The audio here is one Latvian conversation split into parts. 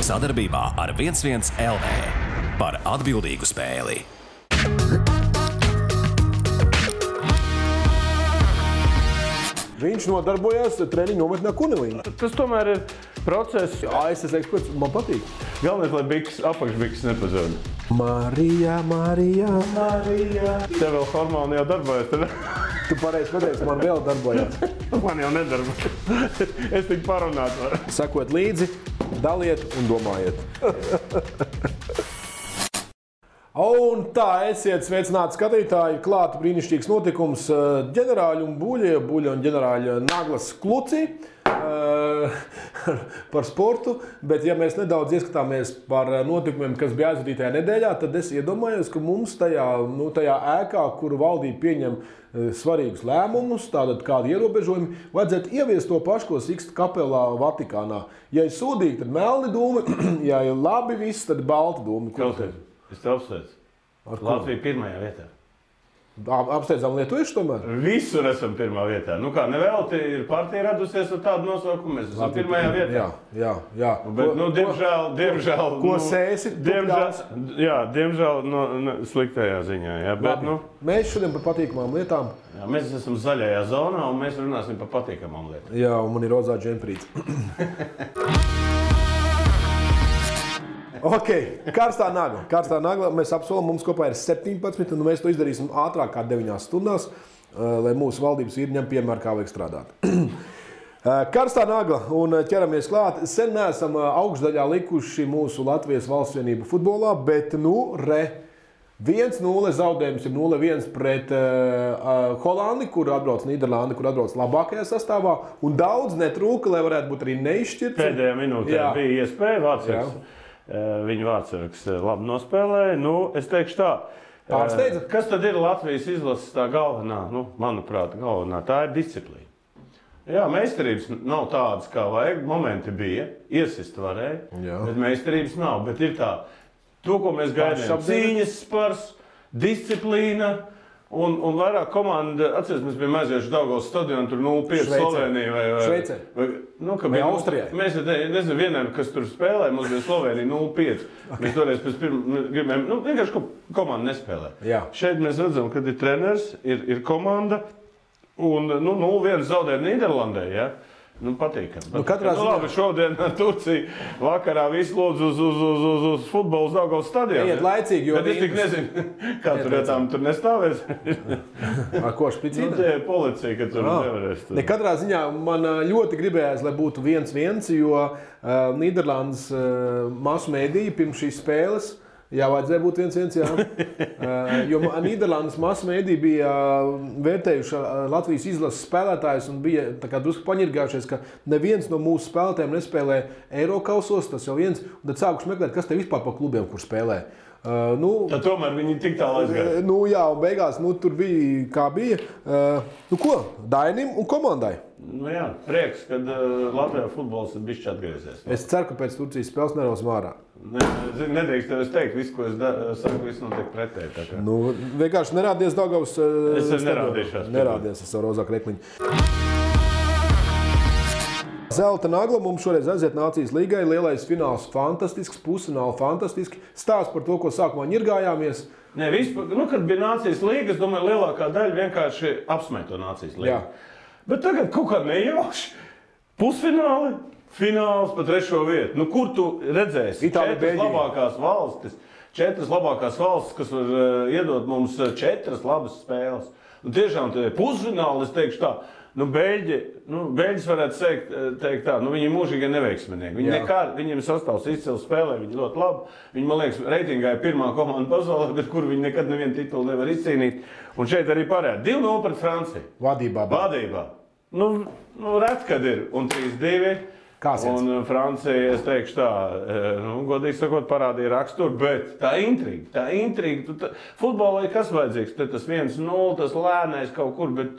Sadarbībā ar 11 LV par atbildīgu spēli. Viņš nodarbojās treniņu nometnē Kunelī. Tas tomēr ir process. ASS eksperts, man patīk. Galvenais, lai apakšbiks nepazūd. Marija, Marija, Marija. Tev vēl hormoni jau darbojas, tad? Tu pareizi pateici, man vēl darbojās. Man jau nedarbojas. Es tik parunāt varu. Sekot līdzi, daliet un domājiet. Un tā, esiet sveicināti skatītāji, klāta brīnišķīgs notikums ģenerāļa un Buļa un ģenerāļa Naglas Kluci par sportu, bet ja mēs nedaudz ieskatāmies par notikumiem, kas bija aizvadītajā nedēļā, tad es iedomājos, ka mums tajā ēkā, kuru valdība pieņem svarīgus lēmumus, tātad kādi ierobežojumi, vajadzētu ieviest to pašu, ko Siksta kapelā Vatikānā. Ja ir sūdīgi, tad melni dūmi, ja ir labi viss, tad balti dūmi. Es te apsveicu. Latvija pirmajā vietā. Apsteidzām lietuviešu tomēr? Visur esam pirmā vietā. Nu kā, nevēlti ir partija radusies ar tādu nosaukumu, mēs esam pirmajā vietā. Jā. Bet, diemžēl... Ko sēsi? Diemžēl sliktajā ziņā. Jā, bet, Mēs šodien par patīkamām lietām. Jā, mēs esam zaļajā zonā un mēs runāsim par patīkamām lietām. Jā, un man ir rozā džemprīts. Ok, karstā nagla. Mēs apsolam, mums kopā ir 17, un mēs to izdarīsim ātrāk kā 9 stundās, lai mūsu valdības vīri ņem piemēru, kā vajag strādāt. Karstā nagla un ķeramies klāt. Sen neesam augšdaļā likuši mūsu Latvijas valstsvienību futbolā, bet 1-0 zaudējums ir 0-1 pret Holandi, kur atbrauc Nīderlandi, kur atbrauc labākajā sastāvā, un daudz netrūka, lai varētu būt arī neizšķirts. Pēdējā minūtē bija iespēja vārdsargs. Viņa vārdsargs labi nospēlēja. Es teikšu tā. Pārsteidza? Kas tad ir Latvijas izlases tā galvenā? Manuprāt, galvenā. Tā ir disciplīna. Jā, meistarības nav tādas, kā vajag. Momenti bija. Iesist varēja. Bet meistarības nav. Bet ir tā. To, ko mēs gaidījām. Cīņas spars, disciplīna. Un vairāk komanda, atceries, mēs bijām aizieši Daugavas stadionu, tur 0-5 Slovenija vai Šveicē. Vai Austrijai. Mēs nezinu vienam, kas tur spēlē, mums bija Slovenija 0-5. Mēs toreiz pēc gribējām, vienkārši komanda nespēlē. Jā. Šeit mēs redzam, kad ir treneris, ir komanda, un 0-1 zaudē Nīderlandē, ja? Patīkami. Labi, šodien Turcija vakarā visu lūdzu uz futbolu Daugavas stadionu. Iet laicīgi, jo... Bet es tik nezinu, kā tur nestāvēs. Ar ko špicīna? Tie ir policija, ka tur nevarēs. Katrā ziņā man ļoti gribējās, lai būtu 1-1, jo Nīderlandes masu mēdīja pirms šīs spēles, vajadzēja būt 1-1, jā. Jo Nīderlandes masu mēdī bija vērtējuši Latvijas izlases spēlētājus un bija drusku paņirgājušies, ka neviens no mūsu spēlētājiem nespēlē Eirokausos, tas jau viens, un tad sākuši meklēt, kas te vispār pa klubiem, kur spēlē. Tad tomēr viņi tik tālu aizgāja. Jā, un beigās tur bija, kā bija. Ko? Dainim un komandai. Prieks, kad Latvijā futbols ir bišķi atgriezies. Es ceru, ka pēc Turcijas spēles nerausim ārā. Nedrīkst tev es teikt, visu, ko es saku, viss notiek pretēji. Vienkārši nerādies Daugavas Es nerādīšos. Nerādies ar savu rozā krekliņu. Zelta nagla mums šoreiz aiziet Nācijas līgai. Lielais fināls fantastisks, pusfināli fantastiski. Stāsts par to, ko sākumā ņirgājāmies. Kad bija Nācijas līga, es domāju, lielākā daļa vienkārši apsmēja to Nācijas līgu. Bet tagad kaut kā nejauši. Pusfināli, fināls pa 3. vietu. Kur tu redzēsi? Četras labākās valstis, kas var iedot mums 4 labas spēles. Tiešām pusfināli, es teikšu tā. Beļģis varētu teikt tā, viņi ir mūžīgi neveiksminieki. Viņiem sastāvs izcili spēlē, viņi ļoti labi. Viņi, man liekas, reitingā ir pirmā komanda pasaulē, bet kur viņi nekad nevienu titulu nevar izcīnīt. Un šeit arī parāda 2-0 pret Franciju. Vadībā. Ret, kad ir. Un 3-2. Un Francija, es teikšu tā, godīgi sakot, parādīja raksturu, bet tā intriga. Futbolā ir kas vajadzīgs? Tas 1-0, tas lēnais kaut kur, bet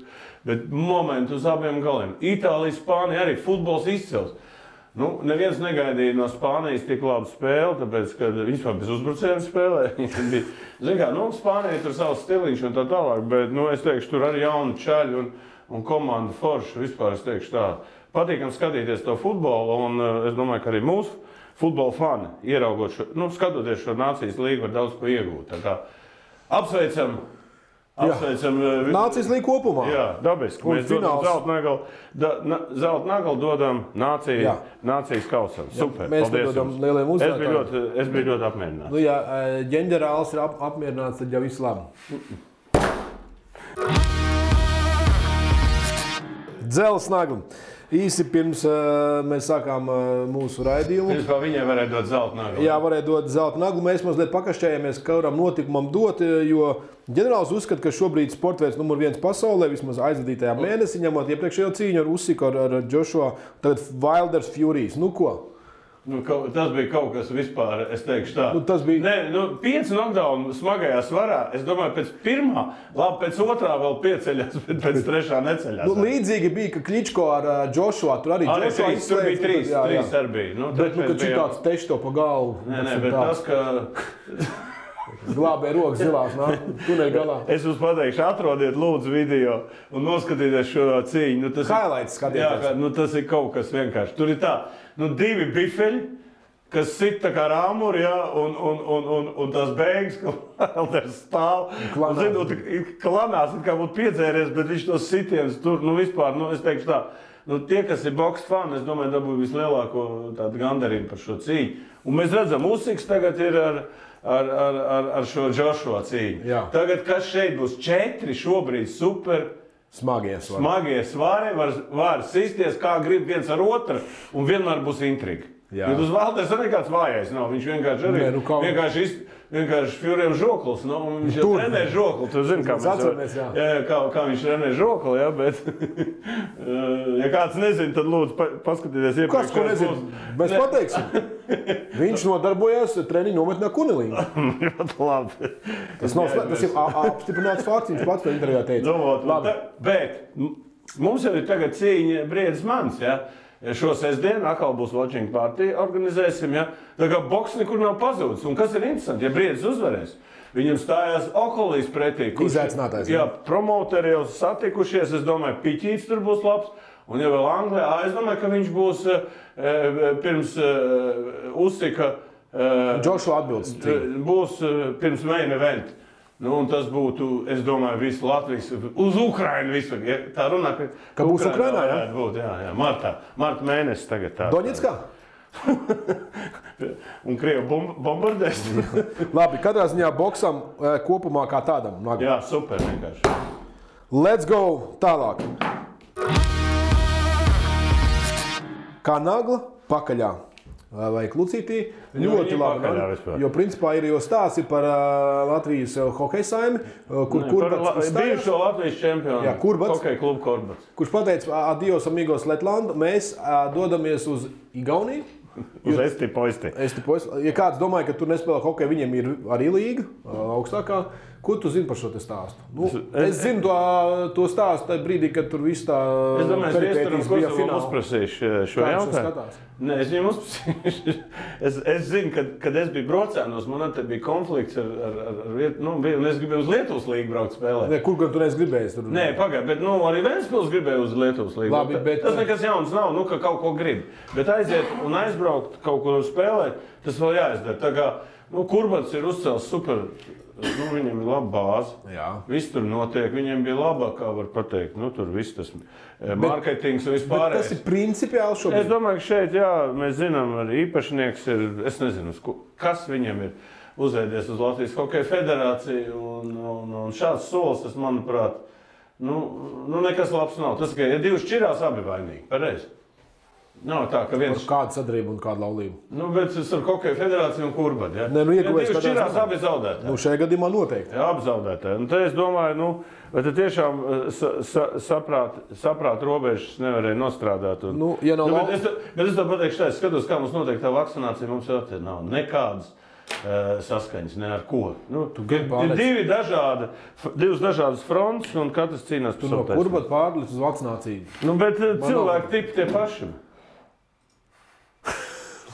momentu uz abiem galiem. Itālija, Spānija arī futbols izcils. Neviens negaidīja no Spānijas tik labu spēli, tāpēc, ka viņš bez uzbrucējiem spēlē. Spānija tur savs stiliņš un tā tālāk, bet, es teikšu, tur arī jauni čaļi un komanda forša. Vispār es teikšu tā, patīkam skatīties to futbolu, un es domāju, ka arī mūsu futbola fani, ieraugot šo, skatoties šo nācijas līgu, var daudz ko iegūt. Tā kā apsveicam Nācijas līga kopumā. Jā, dabiski. Mēs dodam zelta nagalu dodam nācijas kausam. Super, mēs dodam lieliem uzvarētājiem. Es biju ļoti apmierināts. Ja ģenerālis ir apmierināts, tad jau viss labi. Dzelzs nagla. Īsi pirms mēs sākām mūsu raidījumu. Pirms viņai varēja dot zelta naglu. Jā, varēja dot zelta naglu. Mēs mazliet pakašķējāmies, kuram notikumam dot, jo ģenerālis uzskata, ka šobrīd sportveids numur 1 pasaulē, vismaz aizvadītajā mēnesī, ņemot iepriekšējo cīņu ar Usyku, ar Joshua, tagad Wilders Furies. Nu ko? Tas bija kaut kas vispār, es teikšu tā. Tas bija... 5 knockdown smagajā svarā, es domāju, pēc pirmā, labi, pēc otrā vēl pieceļās, bet pēc trešā neceļās. Līdzīgi bija, ka Kličko ar Joshua, tur arī Joshua izslēdz. Tur bija 3 arī bija. Bet, kad šitāds teši to pa galvu. Nē, bet tas, ka... Glābē rokas zilās, tuneļa galā. Es jums pateikšu, atrodiet lūdzu video un noskatieties šo cīņu. Highlights skatieties. Jā, tas ir kaut kas vienkārši. Tur ir tā, 2 bifeļi, kas sit tā kā rāmuri, un tās beigas, ka Wilders stāv. Klanās, kā būtu piedzēries, bet viņš tos sitienus tur, vispār, es teikšu tā, tie, kas ir boks fani, es domāju, dabūja vislielāko tādu gandarījumu par šo cīņu. Un mēs redzam, Usyks tagad ir ar šo Joshua cīņu. Jā. Tagad, kas šeit būs 4 šobrīd super smagie svari, var sisties, kā grib viens ar otru, un vienmēr būs intriga. Bet uz Wilders nekāds vājais nav, viņš vienkārši Furiem žoklis, viņš jau trenē žokli, tu zini, kā viņš trenē žokli, jā, bet, ja kāds nezina, tad lūdzu paskatieties iepriekš. Kas, ko nezina? Mēs pateiksim. Viņš nodarbojās treniņu nometnē Kunelīnā. Ļoti labi. Tas ir apstiprināts fakts, viņš pats to intervijā teica. Bet mums jau ir tagad cīņa Briedis Mans, jā. Šo sestdienu atkal būs watching party, organizēsim, ja? Tā kā boks nekur nav pazūdis. Un kas ir interesanti, ja Briedis uzvarēs, viņam stājās Okolīs pretī. Izaicinātājs. Jā, promoteri jau satikušies, es domāju, Piķīts tur būs labs. Un ja vēl Anglijā, es domāju, ka viņš būs pirms Usyka... Joshua atbildes. Būs pirms main event. Un tas būtu, es domāju, visu Latvijas, uz Ukrainu visu. Tā runā, ka būs Ukrainā, jā? Būt, jā. Marta mēnesis tagad tā. Doņetskā? Un Krievi bombardēs. Labi, katrā ziņā boksam kopumā kā tādam. Jā, super vienkārši. Let's go tālāk. Kā nagla pakaļā. Vai klucītī, ļoti labi. Jo principā ir jau stāsti par Latvijas hokeja saimi, kur Kurbats izstājās. Bijušo Latvijas čempionu. Jā, Kurbats. Hokeja klubu Kurbats. Kurš pateica, adios amigos Letlandu, mēs dodamies uz Igauniju. Uz Esti-Poisti. Ja kāds domāja, ka tur nespēlē hokeju, viņiem ir arī līga augstākā. Ko tu zini par šo te stāstu? Es zinu to stāstu tajā brīdī, kad tur viss tā peripētīs bija fināli. Uzprasīšu šo jautājumu. Nē, es viņam uzprasīšu. Es zinu, kad es biju Brocēnos, man te bija konflikts ar es gribēju uz Lietuvas līgu braukt spēlēt. Nē, kur gan tu neesi gribējis? Nē, pagaid, bet arī Ventspils gribēja uz Lietuvas līgu. Labi, bet... Tas nekas jauns nav, ka kaut ko grib. Bet aiziet un aizbraukt kaut ko spēlēt, tas vēl jāizdara. Tā kā, Kurbats ir uzcēlis super... Viņam ir laba bāze. Viss tur notiek. Viņiem bija laba, kā var pateikt. Tur viss tas marketings un vispārējais. Tas ir principiāli šobrīd. Es domāju, ka šeit, mēs zinām, arī īpašnieks ir, es nezinu, kas viņam ir uzveidies uz Latvijas Hokeja federāciju. Un šāds solis, tas, manuprāt, nekas labs nav. Tas, ka ja 2 šķirās, abi vainīgi. Pareizi. Nav tā, ka viens... Kāda sadarbība un kāda laulība? Bet es ar Hokeja federāciju un Kurbatu, ja? Nē, ieguvēs šķirās abi zaudētāji. Šajā gadījumā noteikti. Jā, abi zaudētāji. Un te es domāju, vai te tiešām saprāt robežas nevarēja nostrādāt. Ja nav bet es tā pateikšu tā, es skatos, kā mums notiek tā vakcinācija, mums jau te nav nekādas saskaņas, ne ar ko. Ir divas dažādas frontes, un katrs cīnās par savu taisnību. Kurbatu pārlikt uz vakcināciju. Bet cilvēki tipi tie paši.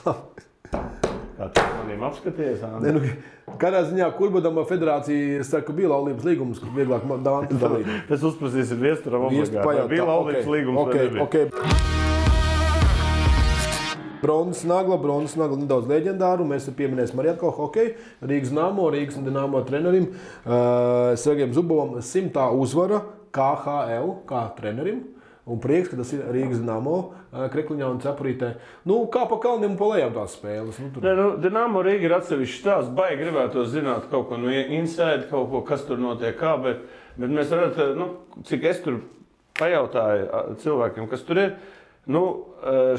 Kā tu maniem apskaties, Andi? Kādā ziņā Kurbatam federācija saka, ka bija laulības līgums, kur vieglāk dāntu dalīt. Tas uzprasīsim viesturam obligāti. Bija laulības līgums vai nebija? Bronzas nagla nedaudz leģendāru. Mēs pieminēsim arī atkal hokeju. Rīgas Dinamo trenerim Sergejam Zubovam 100. uzvara KHL kā trenerim. Un prieks, ka tas ir Rīgas Dinamo Krekliņā un Cepurītē. Kā pa kalniem un pa lejām tās spēles. Dinamo Rīga ir atsevišķi stāsts. Baigi gribētu zināt kaut ko no inside, kaut ko, kas tur notiek kā, bet mēs varētu, cik es tur pajautāju cilvēkiem, kas tur ir,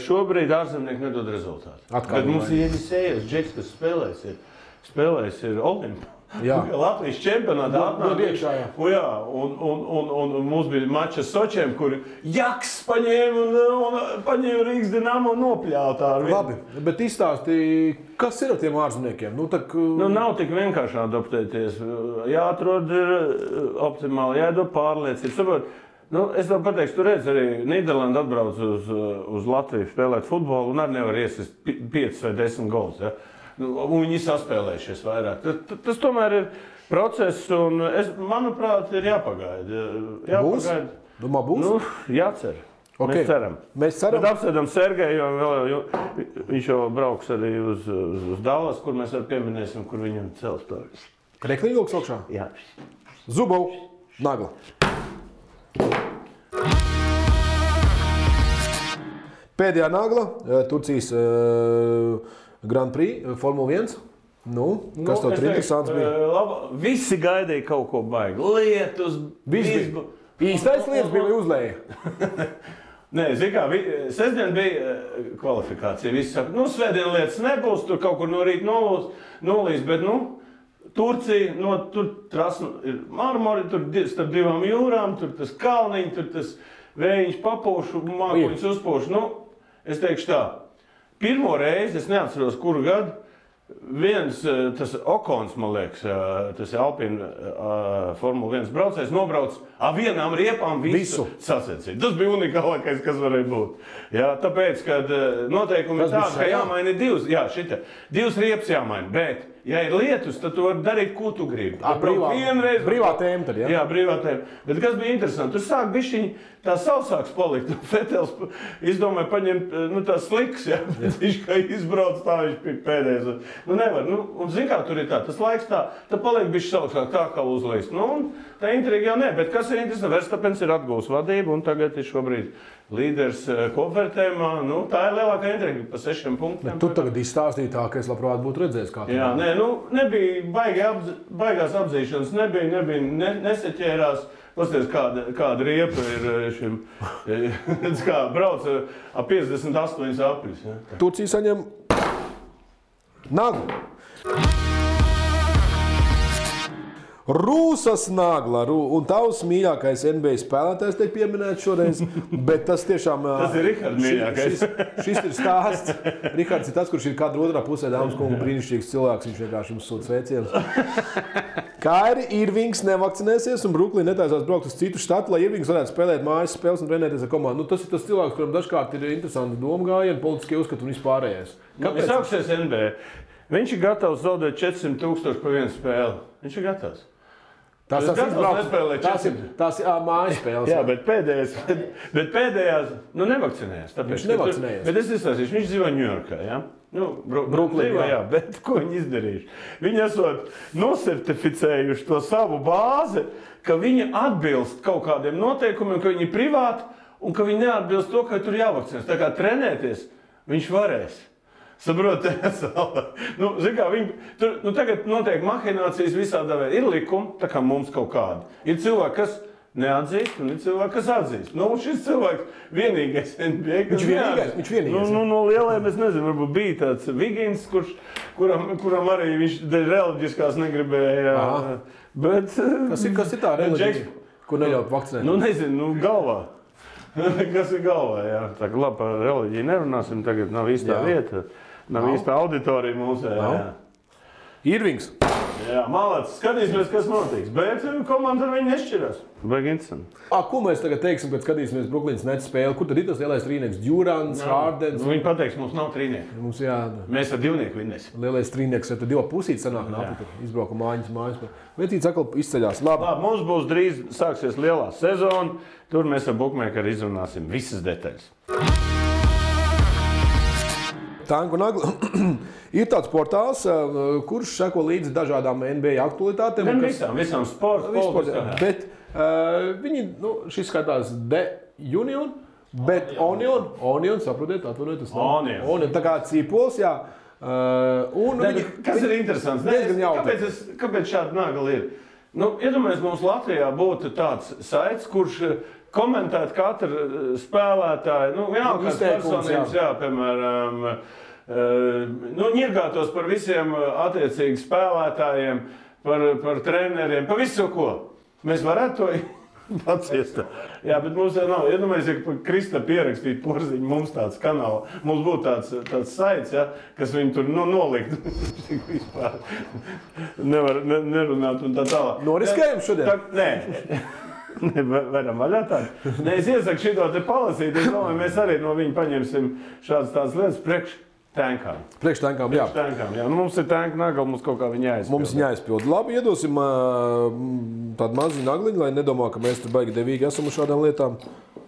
šobrīd ārzemnieki nedod rezultātu. Bet mums ir Jenisejevs, Džeks, kas spēlēs ir Olimpa. Jā. Latvijas čempionātā atnāk iekšā, jā. Un mums bija mačs ar Sočiem, kur Jaks paņēma Rīgas Dinamo nopļautā. Labi, bet izstāstīja, kas ir ar tiem ārzemniekiem? Nav tik vienkārši adaptēties. Jāatrod optimāli, jādod pārliecību. Es tev pateikšu, tu redz arī Nīderlanda atbrauc uz Latviju spēlēt futbolu un arī nevar iesist 5 vai 10 gols. Ja? Un viņi saspēlējušies vairāk. Tas tomēr ir process, un manuprāt, ir jāpagaida. Būs? Domā, būs? Jācer. Okay. Mēs ceram. Bet apsēdam Sergeju, jo viņš jau brauks arī uz Dallas, kur mēs arī pieminēsim, kur viņam cels stāvis. Krekliņa vilks augšā? Jā. Zubov, nagla. Pēdējā nagla, Turcijas Grand Prix, Formula 1. Kas tev tur interesants bija? Visi gaidīja kaut ko baigi. Lietus, bija. Īstais lietas bija uzlēja. Nē, zini kā, sestdien bija kvalifikācija. Visi saka, svētdien lietas nebūs, tur kaut kur no rīta nolīs, bet, Turcija, tur trasa ir marmori, tur starp divām jūrām, tur tas kalniņi, tur tas vējiņš papūšu, mākoņus uzpūšu. Es teikšu tā. Pirmo reizi, es neatceros, kuru gadu, tas Okons, man liekas, tas ir Alpina Formula 1 braucējs, nobrauc vienām riepām visu sacensību. Tas bija unikālākais, kas varēja būt. Jā, tāpēc, kad noteikumi ir tādi, ka jāmaina divas riepas jāmaina, bet, ja ir lietus, tad tu vari darīt, ko tu gribi. Brīvā tēma tad, jā? Jā, brīvā tēma. Bet kas bija interesanti, tur sāk bišķiņi tā sausāks palikt. Fetels izdomāja paņemt tās sliks, jā. Viņš kā izbrauc tā, viņš bija pēdējais. Nevar. Un zin kā tur ir tā, tas laiks tā paliek bišķi sausāk tā kā uzlīst. Tā intriga jau ne, bet kas ir interesanti, Verstapens ir atgūs vadību un tagad ir šobrīd līderis kopvērtējumā. Tā ir lielākā intriga pa 6 punktiem. Tu tagad izstāstīji tā, ka es labprāt būtu redzējis kā. Jā, nebija baigās apzīšanas, neseķērās. Pasties, kāda riepa ir šim, kā brauc 58 apļus. Ja? Turcija saņem naglu. Rūsas nagla, un tavs mīļākais NBA spēlētājs tiek pieminēts šoreiz, bet tas tiešām... Tas ir Rihards mīļākais. Šis ir stāsts. Rihards ir tas, kurš ir kāda otrā pusē, dāmas kungu, brīnišķīgs cilvēks, viņš vienkārši jums sūta sveicienus. Kairi Irvings nevakcinēsies un Bruklina netaisās braukt uz citu štatu, lai Irvings varētu spēlēt mājas spēles un trenēties ar komandu. Tas ir tas cilvēks, kuram dažkārt ir interesanti domgājieni, politiskie uzskati un vispārējais. Kāpēc? Sāksies NBA. Viņš ir gatavs zaudēt 400,000 par vienu spēli. Viņš ir gatavs. Tās ir mājas spēles. Jā, bet pēdējās nevakcinējās. Viņš nevakcinējās. Bet es izstāstīšu, viņš dzīvo Ņujorkā, jā? Brooklynā, jā. Bet ko viņi izdarījuši? Viņi esot nosertificējuši to savu bāzi, ka viņi atbilst kaut kādiem noteikumiem, ka viņi ir privāti un ka viņi neatbilst to, ka tur jāvakcinēs. Tā kā trenēties viņš varēs. Saprot, zin kā, tagad notiek mahinācijas visādā veidā. Ir likumi, tā kā mums kaut kādi. Ir cilvēki, kas neatzīst, un ir cilvēki, kas atzīst. Šis cilvēks vienīgais NBA, kas neatzīst. Viņš vienīgais. No lielajiem, es nezinu, varbūt bija tāds Vigins, kuram arī viņš reliģiskās negribēja. Bet, kas ir tā reliģija, kur neļaut vakcinēt? Nezinu, galvā. Kas ir galvā, jā. Tā kā labi par reliģiju nerunāsim, tagad nav īstā vieta. Nav īsta auditorija mūsē. Irvings. Jā, malāc, skatīsimies, kas notiks. Bet komanda ar viņu nešķirās. Baigi interesanti. Ko mēs tagad teiksim, kad skatīsimies Brooklynas Nets spēli? Kur tad ir tas lielais trīnieks? Durants, Hardens? Viņi pateiks, mums nav trīnieki. Mēs ar divnieku vinnēsim. Lielais trīnieks, tad divi pusīt sanāk nāpi, izbrauka mājas. Vecīts atkal izceļās. Labi, mums būs drīz sāksies lielā sezona. Tur mēs ar bookmakeri izrunāsim visas detaļas. Tanku nagla. Ir tāds portāls, kurš seko līdzi dažādām NBA aktualitātēm. Visām sporta. Bet viņi, šis skatās The Union, bet Onion, saprotiet, atvainojiet, tas nav. Onion, tā kā cīpols, jā. Kas ir interesants? Kāpēc šāda nagla ir? Iedomājies, mums Latvijā būtu tāds saits, kurš komentēt katru spēlētāju, vienalga kāds personības, piemēram, ņirgātos par visiem attiecīgi spēlētājiem, par treneriem, par visu ko. Mēs varētu to paciest. Jā, bet mums jau nav. Iedomājies, ja Krista pierakstītu Porziņu, mums tāds kanāls, mums būtu tāds saits, kas viņu tur nolikt. Vispār nevar nerunāt un tā tālāk. Noriskējam šodien? Nē. Varam vaļā tādu. Es iesaku šito te palasīt. Es domāju, mēs arī no viņa paņemsim šādas tādas lietas priekš tankām. Priekš tankām, jā. Mums ir tanka nagla, mums kaut kā viņa jāizpild. Mums viņa jāizpild. Labi, iedosim tādu maziņu nagliņu, lai nedomā, ka mēs tur baigi devīgi esam uz šādām lietām.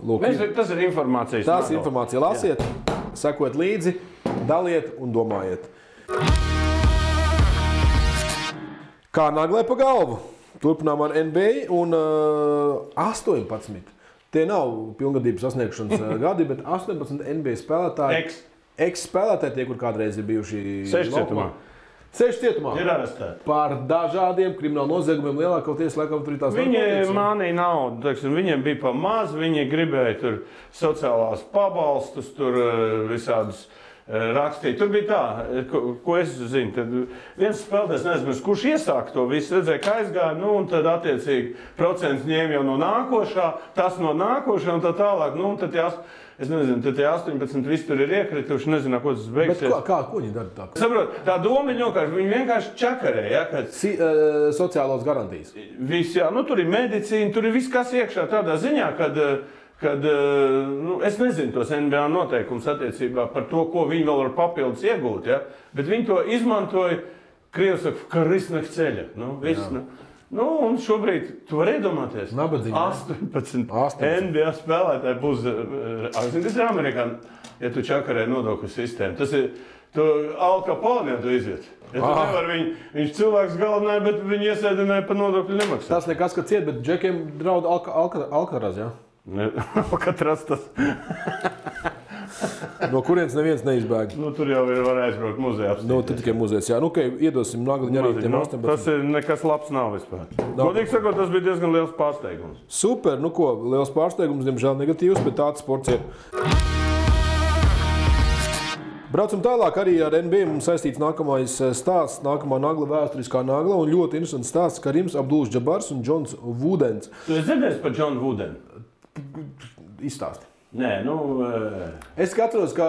Lūk, tas ir informācijas nagla. Tas ir informācija. Lasiet, sekojiet līdzi, daliet un domājiet. Kā naglai pa galvu? Turpinām ar NBA un 18. Tie nav pilngadības sasniegšanas gadi, bet 18 NBA spēlētāji. Ex-spēlētāji, tie, kur kādreiz ir bijuši 6 cietumā. 6 cietumā. Ir arestēti. Par dažādiem kriminālu noziegumiem lielākoties, laikam, tur ir tās Viņi mānīja naudu, viņiem bija pa maz, viņi gribēja tur sociālās pabalstus, tur visādus rakstīja. Tur bija tā, ko es zinu. Tad viens spēlētājs, nezinu, kurš iesāka to visu, redzēja, kā aizgāja, un tad attiecīgi procents ņēma jau no nākošā, tas no nākošā un tā tālāk. Un tad es nezinu, tad tie 18 visi tur ir iekrituši, nezinu, ko tas beigsies. Bet ko viņi dara tā? Saprot, tā doma viņi vienkārši čakarē, kad sociālos garantijas. Viss, jā, tur ir medicīna, tur ir viss, kas iekšā tādā ziņā, kad es nezinu tos NBA noteikumus attiecībā par to, ko viņi vēl var papildus iegūt, bet viņi to izmantoja, Krievs saka, ka risnāk ceļa. Un šobrīd, tu vari iedomāties, 18 NBA spēlētāji būs, kas ir Amerikāni, ja tu čakarē nodokļu sistēmu. Tas ir, tu Al Capone, ja tu iziet. Ja tu nevar viņš cilvēks galvenāja, bet viņi iesēdināja par nodokļu nemaksāt. Tas nekas, ka ciet, bet džekiem draud Alcaraz, jā? Alcatraz tas. No kurienes neviens neizbēg. Tur jau var aizbraukt muzejā. Tur tikai muzejs, jā. Iedosim nagliņu arī tiem 18. Tas ir nekas labs nav vispār. Godīgi sakot, tas bija diezgan liels pārsteigums. Super, liels pārsteigums, diemžēl negatīvs, bet tāds sports ir. Braucam tālāk arī ar NBA. Mums saistīts nākamais stāsts, nākamā nagla, vēsturiskā nagla. Un ļoti interesants stāsts Karims Abdul-Džabars un Džons Vudens. Tu esi dzirdējis par Džonu Vudenu? Izstāsti. Nē, Es skatos, ka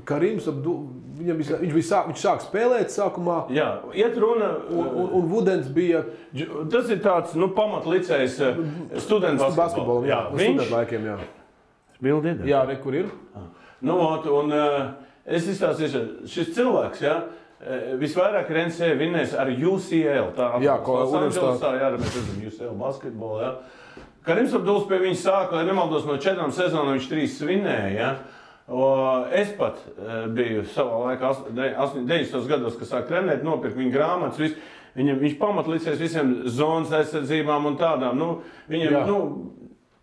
Karims viņš sāk spēlēt sākumā. Jā, iet runa. Un Vudens bija... Tas ir tāds, pamatlicējs students basketbolam. Jā, student laikiem, jā. Bildi ir? Jā, kur ir? Es izstāstīšu, šis cilvēks, visvairāk ir NCAA vinnējis ar UCL. Mēs redzam UCL basketbolu, Karims Abduls pie viņa sāka, lai nemaldos, no 4 sezonām viņš 3 vinnēja, Es pat biju savā laikā, 90. gados, kad sāk trenēt, nopirku viņa grāmatas, viņš pamatlicēs visiem zonas aizsardzībām un tādām, viņam,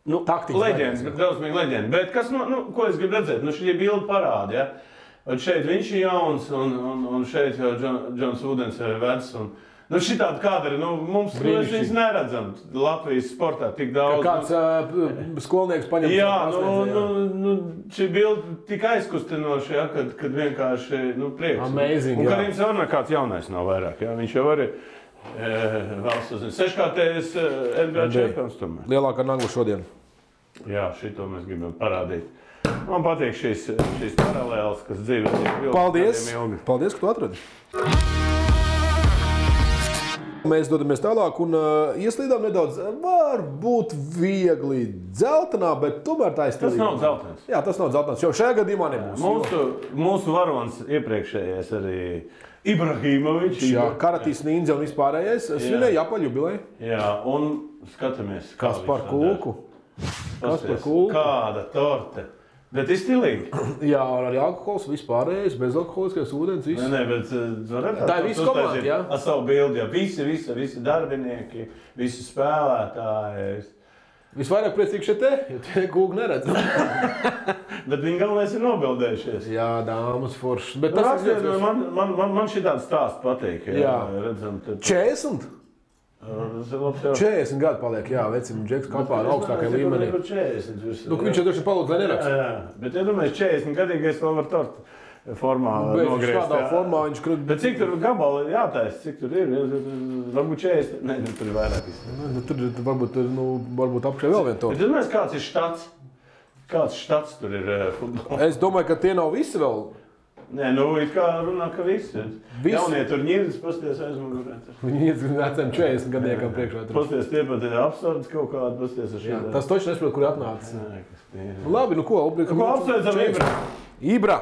leģendas, drausmīgi leģenda. Bet kas, ko es gribu redzēt? Šī bilde parāda, ja? Un šeit viņš ir jauns, un šeit jau Džons Vudens ir vecs. Šitādi kadri, mums viņus neredzam Latvijas sportā tik daudz. Kāds skolnieks paņem. Jā, šī bilde tik aizkustinoša, ja, kad vienkārši, prieks. Amazing, un Karims jau nekāds jaunais nav vairāk, ja, viņš jau arī valsts uzzina. 6-kārtējs NBA čempions tomēr. Lielākā nagla šodien. Jā, šito mēs gribam parādīt. Man patīk šīs paralēles, kas dzīvē tiek ilgi. Paldies, ka tu atradi. Mēs dodamies tālāk un ieslīdām nedaudz, varbūt viegli dzeltenā, bet tomēr tā ir stilīga. Tas nav dzeltens. Jā, tas nav dzeltens, jo šajā gadījumā nebūs. Mūsu varonis iepriekšējais arī Ibrahimovičs. Jā, Karatīs Nīndze un vispārējais svinēja apaļu jubileju. Jā, un skatāmies. Kas par kūku? Kāda torte. Bet ir stilīgi. Jā, arī alkohols, vispārējais, bezalkoholiskais ūdens, viss. Nē, bet tā ir visa komanda, jā. Ar savu bildi, jā. Visi darbinieki, visi spēlētāji. Visvairāk priecīgi šeit te, jo tie kūgi neredz. Bet viņi galvenais ir nobildējušies. Jā, dāmas foršas. Bet man šī tāda stāsts patīk. Jā. Redzam, 40? 40 gadu paliek, jā, vecim Džeks kapā ar augstākajā līmenī. Viņš jau droši palūdz, lai neraksta. Jā, bet iedomājies, 40 gadīgais vēl var tortu formā nogriezt. Kādā formā viņš krūt. Bet cik tur gabali jātaisa, cik tur ir? Varbūt 40, ne, tur ir vairāk. Tur varbūt apšai vēl vien tortu. Bet iedomājies, kāds ir štats? Kāds štats tur ir futbolā? Es domāju, ka tie nav visi vēl. Nē, it kā runā, ka visi. Jaunie tur ņirdas, pasties aizmugurē. Viņi iet veciem 40 gadniekam priekšā. Pasties tie pat ir apsardzes kaut kādi, pasties ar šeit. Tas toši nesaprot, kur atnācis. Labi, nu ko? Ko apsveicam Ibra? Ibra!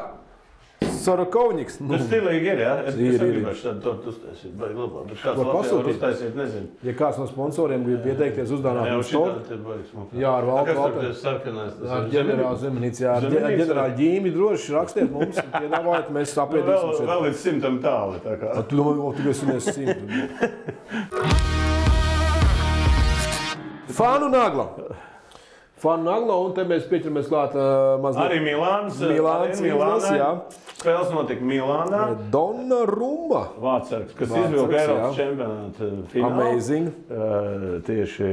Sorokovņiks. Tas stilīgi ir, jā? Es gribēšu tādu tortu uztaisīt, baigi labāk. Bet kāds Latvijā var uztaisīt, nezinu. Ja kāds no sponsoriem grib pieteikties uzdāvināt tortu. Jā, ar valdu. Kas tur sarkanais? Ar ģenerāli Zemenīci, jā. Ģenerāli ģīmi droši rakstiet mums, piedāvājat, mēs sapriedīsim. Vēl līdz 100 tāli, tā kā. Tu domā, tu esi 100. Fanu Nagla. Fanu Nagla, un te mēs pieķeramies klāt mazliet. Arī Milāns, jā. Spēles notika Milānā. Donnarumma. Vārtsargs, kas izvilka Eiropas čempionāta finālu. Amazing. Tieši.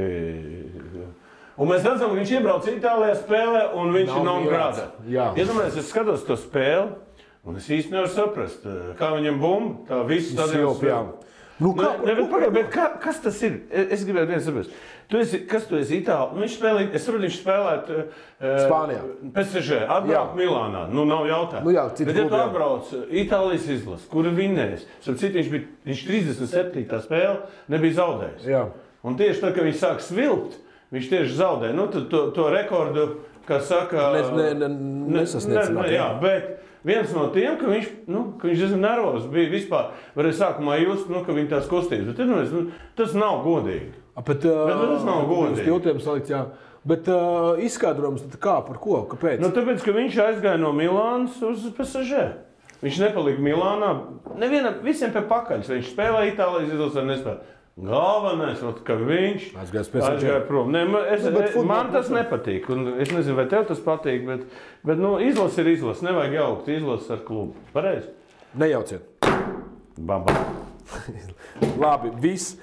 Un mēs redzam, ka viņš iebrauc Itālijā spēlē, un viņš ir non grāda. Iedomājies, es skatos to spēli, un es īsti nevaru saprast, kā viņam bumba, tā visu stadionu spēlē. Bet kas tas ir? Es gribētu viens saprast. Kas tu esi Itālijā? Viņš spēlē, es saprotu, viņš spēlētu Spānijā. PSG, atbrauc Milānā. Nu, nav jautājumu. Bet ja tu atbrauc Itālijas izlasi, kura vinnēs, viņš 37. spēle nebija zaudējis. Jā. Un tieši tad, kad viņš sāk svilpt, viņš tieši zaudēja. Nu, to rekordu, kas saka... Nesasniedzināt. Jā, bet... Viens no tiem, ka viņš diezgan nervozs bija vispār, varēja sākumā just, ka viņa tās kustības. Bet tas nav godīgi. Bet tas nav godīgi. Jūtiem salikts, jā. Bet izskaidrojums kā, par ko, kāpēc? Tāpēc, ka viņš aizgāja no Milānas uz PSG. Viņš nepalika Milānā. Visiem pie pakaļas. Viņš spēlēja Itālijas izlasē, nespēlēja. Galvenais, ka viņš aizgāja prom. Man tas nepatīk. Es nezinu, vai tev tas patīk, bet izlase ir izlase. Nevajag jaukt izlases ar klubu. Pareizi? Nejauciet. Baba. Labi, viss.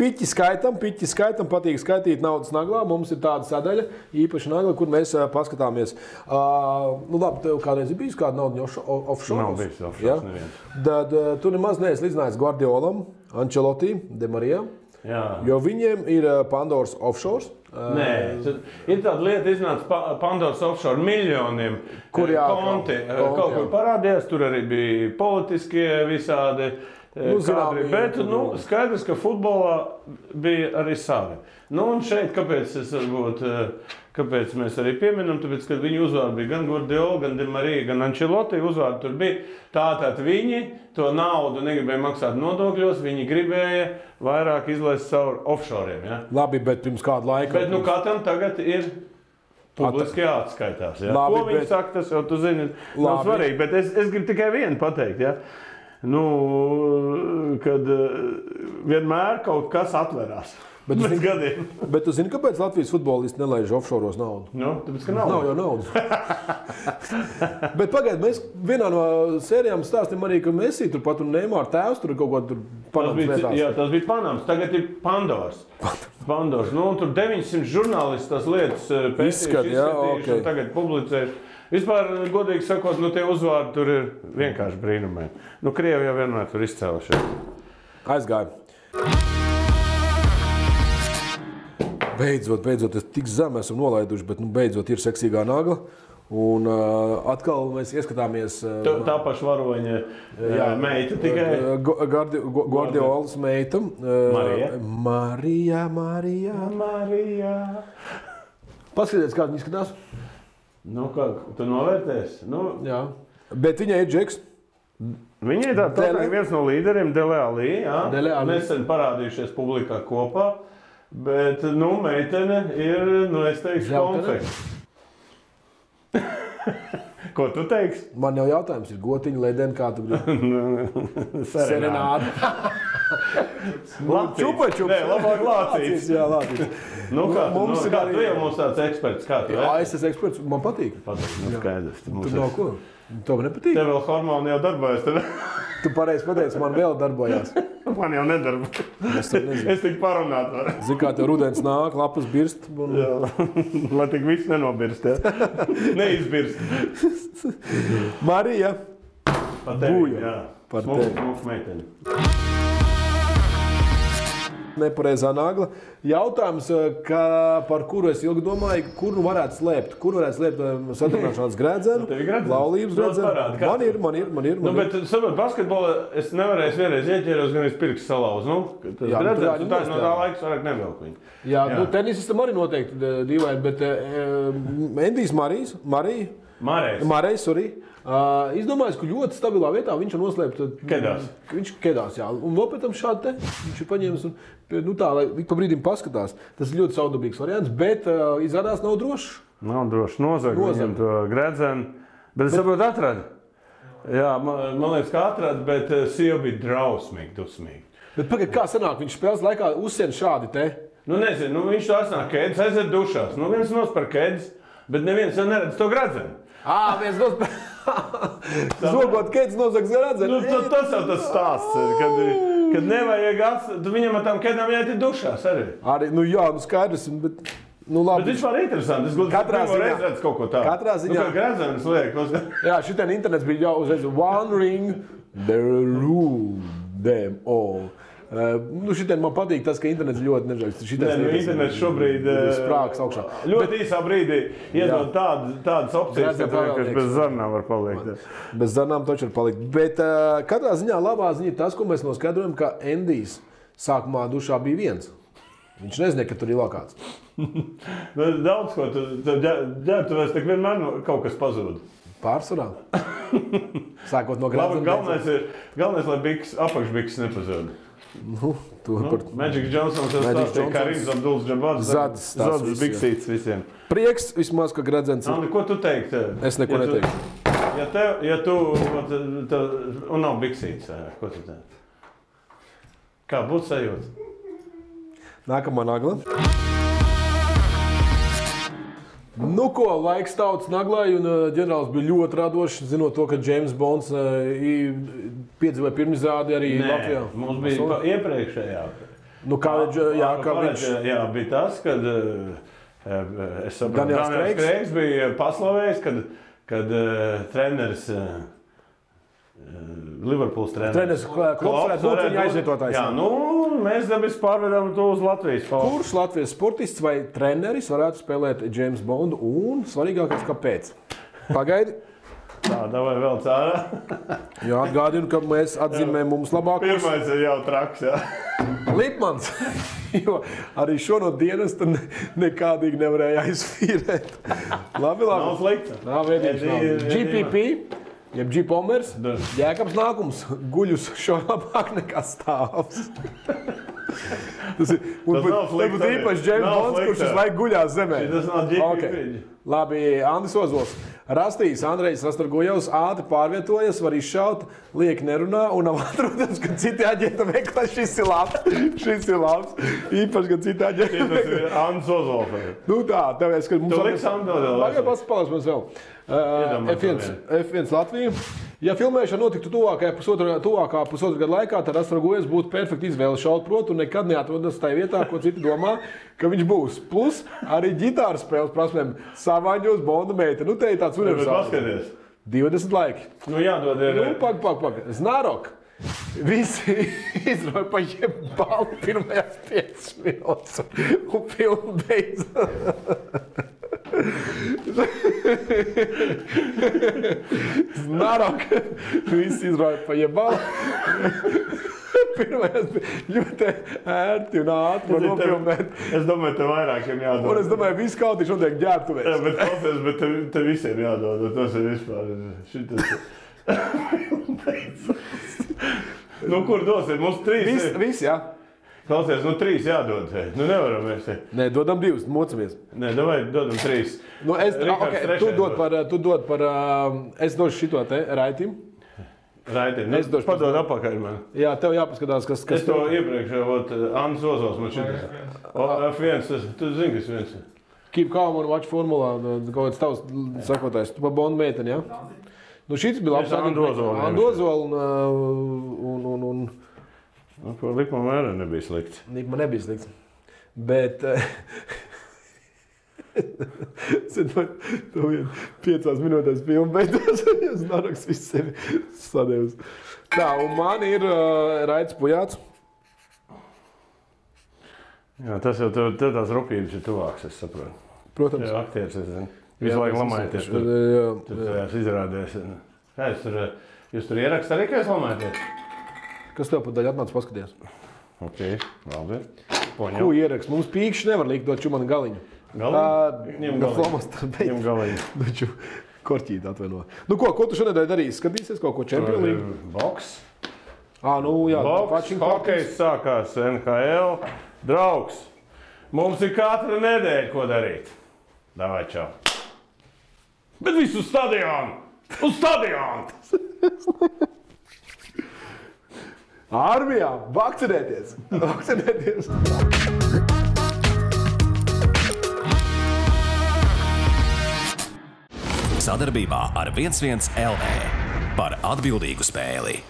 Piķi skaitam, patīk skaitīt naudas naglā. Mums ir tāda sadaļa, īpaši nagla, kur mēs paskatāmies. Labi, tev kādreiz ir bijis kāda nauda offshore? Nav bijis offshore, neviens. Tad tu nemaz neesi līdzinājis Guardiolam, Ancelotti, De Marijā, jo viņiem ir Pandoras offshore. Nē, ir tāda lieta, iznāca Pandoras offshore miljoniem konti. Kaut kur parādījās, tur arī bija politiskie visādi. Bet skaidrs, ka futbolā bija arī savi. Un šeit, kāpēc mēs arī pieminam, tāpēc, ka viņu uzvārdi bija gan Guardiola, gan De Marija, gan Ancelotti uzvārdi tur bija. Tātad viņi to naudu negribēja maksāt nodokļos, viņi gribēja vairāk izlaist caur offshoriem. Ja? Labi, bet pirms kādu laiku. Bet katram tagad ir publiski jāatskaitās. Ja? Labi, ko viņi saka, tas jau tu zini, nav svarīgi, bet es gribu tikai vienu pateikt. Ja? Kad vienmēr kaut kas atverās. Bet tu zini, kāpēc Latvijas futbolisti nelaiž offshoros naudu? Tāpēc, ka nav jau naudas. Bet pagaid, mēs vienā no sērijām stāstīm arī, ka Messi turpat un Neymar tēvs tur kaut ko tur Panamas vietās. Jā, tas bija Panamas. Tagad ir Pandoras. Tur 900 žurnālisti tās lietas pētījuši, un tagad publicējuši. Vispār, godīgi sakot, tie uzvārdi tur ir vienkārši brīnumē. Krievi jau vienmēr tur izcēlušies. Aizgāja. Beidzot, es tik zem esam nolaiduši, bet beidzot ir seksīgā nagla. Un atkal mēs ieskatāmies... Tā paša varoņa meita tikai. Guardiolas meita. Marija. Paskaties, kā viņa izskatās. Tu novērtēsi? Jā. Bet viņai ir Džeks. Viņa ir viens no līderiem, Dele Alli. Nesen parādījušies publikā kopā. Bet, meitene ir, es teikšu, konfekts. Ko tu teiksi? Man jau jautājums ir gotiņa, ledeni, kā tu gribi? Serenāda. Čupačups. Nē, labāk lācīts. Jā, lācīts. Kā tu jau mums tāds eksperts, kā tu? Jā, es esmu eksperts, man patīk. Skaidrs. Tu nav ko? Tev nepatīk? Tev vēl hormoni jau darbojas. Tu pareizi pateici, man vēl darbojās. Man jau nedarbojas. Es tik parunāt varu. Zini, kā tev rudens nāk, lapas birst. Jā, lai tik viss nenobirst, ja? Neizbirst. Marija. Par tevi, jā. Par tevi. Smuku meiteni. Nepareizā nagla. Jautājums, par kuru es ilgi domāju, kur nu varētu slēpt? Kur varētu slēpt satrunāšanās grēdzenu, laulības grēdzenu? Man ir. Bet, saprot, basketbolā es nevarēju vienreiz ieķēros, gan es pirkstu salauzu. Grēdzenu, tā no tā laiks vairāk nevelku viņu. Jā, tenisistam arī noteikti dīvaini, bet Endijs Marejs, izdomājis, ka ļoti stabilā vietā viņš ir noslēpts. Kedās. Viņš kedās, jā. Un vēl pēc tam šādi te viņš ir paņēmis un tā, lai ik pa brīdim paskatās. Tas ir ļoti saudabīgs variants, bet izrādās nav drošs. Nav droši. Nozag viņam to grēdzenu. Bet es saprotu, atrada. Jā, man liekas, ka atrada, bet sieva bija drausmīgi, dusmīgi. Bet pagaid, kā sanāk, viņš spēles laikā uzsien šādi te? Nezinu, viņš to atnāk kēdes, aiziet dušās. Viens nospēr kēdes, bet neviens jau neredz to grēdzenu. Viens nospēr. Zogot kēdes nozags grēdzenu. Tas jau tas stāsts, kad nevajag atstāt, viņam ar tām kēdām jāiet dušās arī. Jā, skaidrs, bet... labi. Bet viņš var interesanti. Es gribētu redzēt kaut ko tādu. Katrā ziņā. Kā grēdzenes liek. Jā, šitien internets bija jau uzreiz one ring, the rule them all. Šitien man patīk tas, ka internets ļoti nežēl. Internets šobrīd sprāks augšā. Ļoti īsā brīdī iedod tādas opcijas, kas bez zarnām var palikt. Bez zarnām taču var palikt. Bet katrā ziņā labā ziņa ir tas, ko mēs noskaidrojam, ka Endijs sākumā dušā bija viens. Viņš nezināja, ka tur ir lokāts. Daudz ko. Ģērbtuvēs tak vienmēr kaut kas pazūd. Pārsvarā. Sākot no grēdzena. Galvenais, lai apakšbiks nepazūd. Magic Johnsons jau stāstīja, kā Rims Abduls Džabads. Zadas biksītes visiem. Prieks vismaz, ka grēdzens ir. Ko tu teiktu? Es neko neteiktu. Ja tu un nav biksītes, ko tu teiktu? Kā būtu sajūta? Nākamā nagla. Laiks tautas naglai, un ģenerālis bija ļoti radošs, zinot to, ka James Bonds piedzīvoja pirmizrādi arī Latvijā. Mums bija iepriekšējā. Jā, bija tas, kad es saprotu, Daniels Kreigs bija paslavējis, kad treneris Liverpools treneris Klops varētu būt viņa aizvietotājs. Jā, mēs dabis pārvedām to uz Latvijas. Kurš Latvijas sportists vai treneris varētu spēlēt James Bondu un svarīgākais, kāpēc? Pagaidi. Tā, davai vēl cārā. Jā, atgādinu, ka mēs atzīmējam mums labākos. Pirmais ir jau traks, jā. Lipmans, jo arī šo no dienas nekādīgi nevarēja aizfīrēt. Labi. Nav slikta. Nav veidīgs. GPP. Jeb G-Pomers, Jēkabs nākums, guļus šo labāk nekā stāvs. Tas būtu īpaši James Bonds, kurš uz laiku guļās zemē. Tas nav GPP. Labi, Andis Ozols. Rastīs, Andrejs Rastorgojevs ātri pārvietojas, var izšaut, lieki nerunā un nav atrodams, ka citi aģenta meklē. Šis ir labs. Īpaši, ka citi aģenta meklē. Tas ir Andis Ozols. Tā, tāpēc, ka mums... Tu liks Andodēl. Pagāj, paspēlēs mums vēl. F1 Latvija. Ja filmēšana notiktu tuvākā pusotra gada laikā, tad Rastorgojevs būtu perfekta izvēle šaut protu un nekad neatrodas tajā vietā, ko citi domā, ka viņš būs. Plus arī ģitāras spēles prasmēm savāņos Bonda meita. Te ir tāds universāls. 20 laiki. Jādod ir... Pag. Znārok. Visi izroja pa jebalu pirmajās 5 minūtes un filmu beidzās. Znārok. Visi izroja pa jebalu. Pirmajās ļoti ērti un ātri var nofilmēt. Es domāju, te vairākiem jādod. Un es domāju, visu kautīšu notiek ģērbtuvēs. Jā, bet te visiem jādod. Tas ir vispār. Šitas. Kur dosim? Mums 3. Visi, jā. Klausies, 3 jādod. Nevaram mēs te. Nē, dodam 2, mocamies. Nē, dodam 3. Tu dod par, es došu šito te Raitim. Raitim, padod apakaļ man. Jā, tev jāpaskatās, kas es to iepriekš, Andris Ozols man šitas. F1, tu zini, kas viens. Keep calm un watch formulā, kaut kāds tavs sakotājs. Tu pa Bondu meiteni, jā? Šitas bija labs. Andu Ozolu un Likuma mērā nebija slikts. Likuma nebija slikts. Bet... Tu 5 minūtēs filmu beidzās, es Naraks visu sevi sadevus. Tā, un man ir Raits Pujāts. Jā, tas jau tev tās rupības ir tuvāks, es saprotu. Protams. Jā, aktieris, es zinu. Visu laiku lamājaties. Tur tajās izrādēs. Kā jūs tur ierakst arī, ka jūs lamājaties? Kas tev pat daļa atnāca paskaties? Ok, labi. Ko ierakst? Mums pīkšķi nevar likt dot čumana galiņu. Ņem galiņu. Doču korķīt atvaino. Nu ko tu šonedēļ darīsi? Skatīsies kaut ko Champions League? Boks. Jā. Boks, hokejs sākās NHL. Draugs, mums ir katra nedēļa, ko darīt. Davai, čau. Bet visu stadionu! Uz stadionu! Armijā! Vakcinēties! Sadarbībā ar 11 LV par atbildīgu spēli.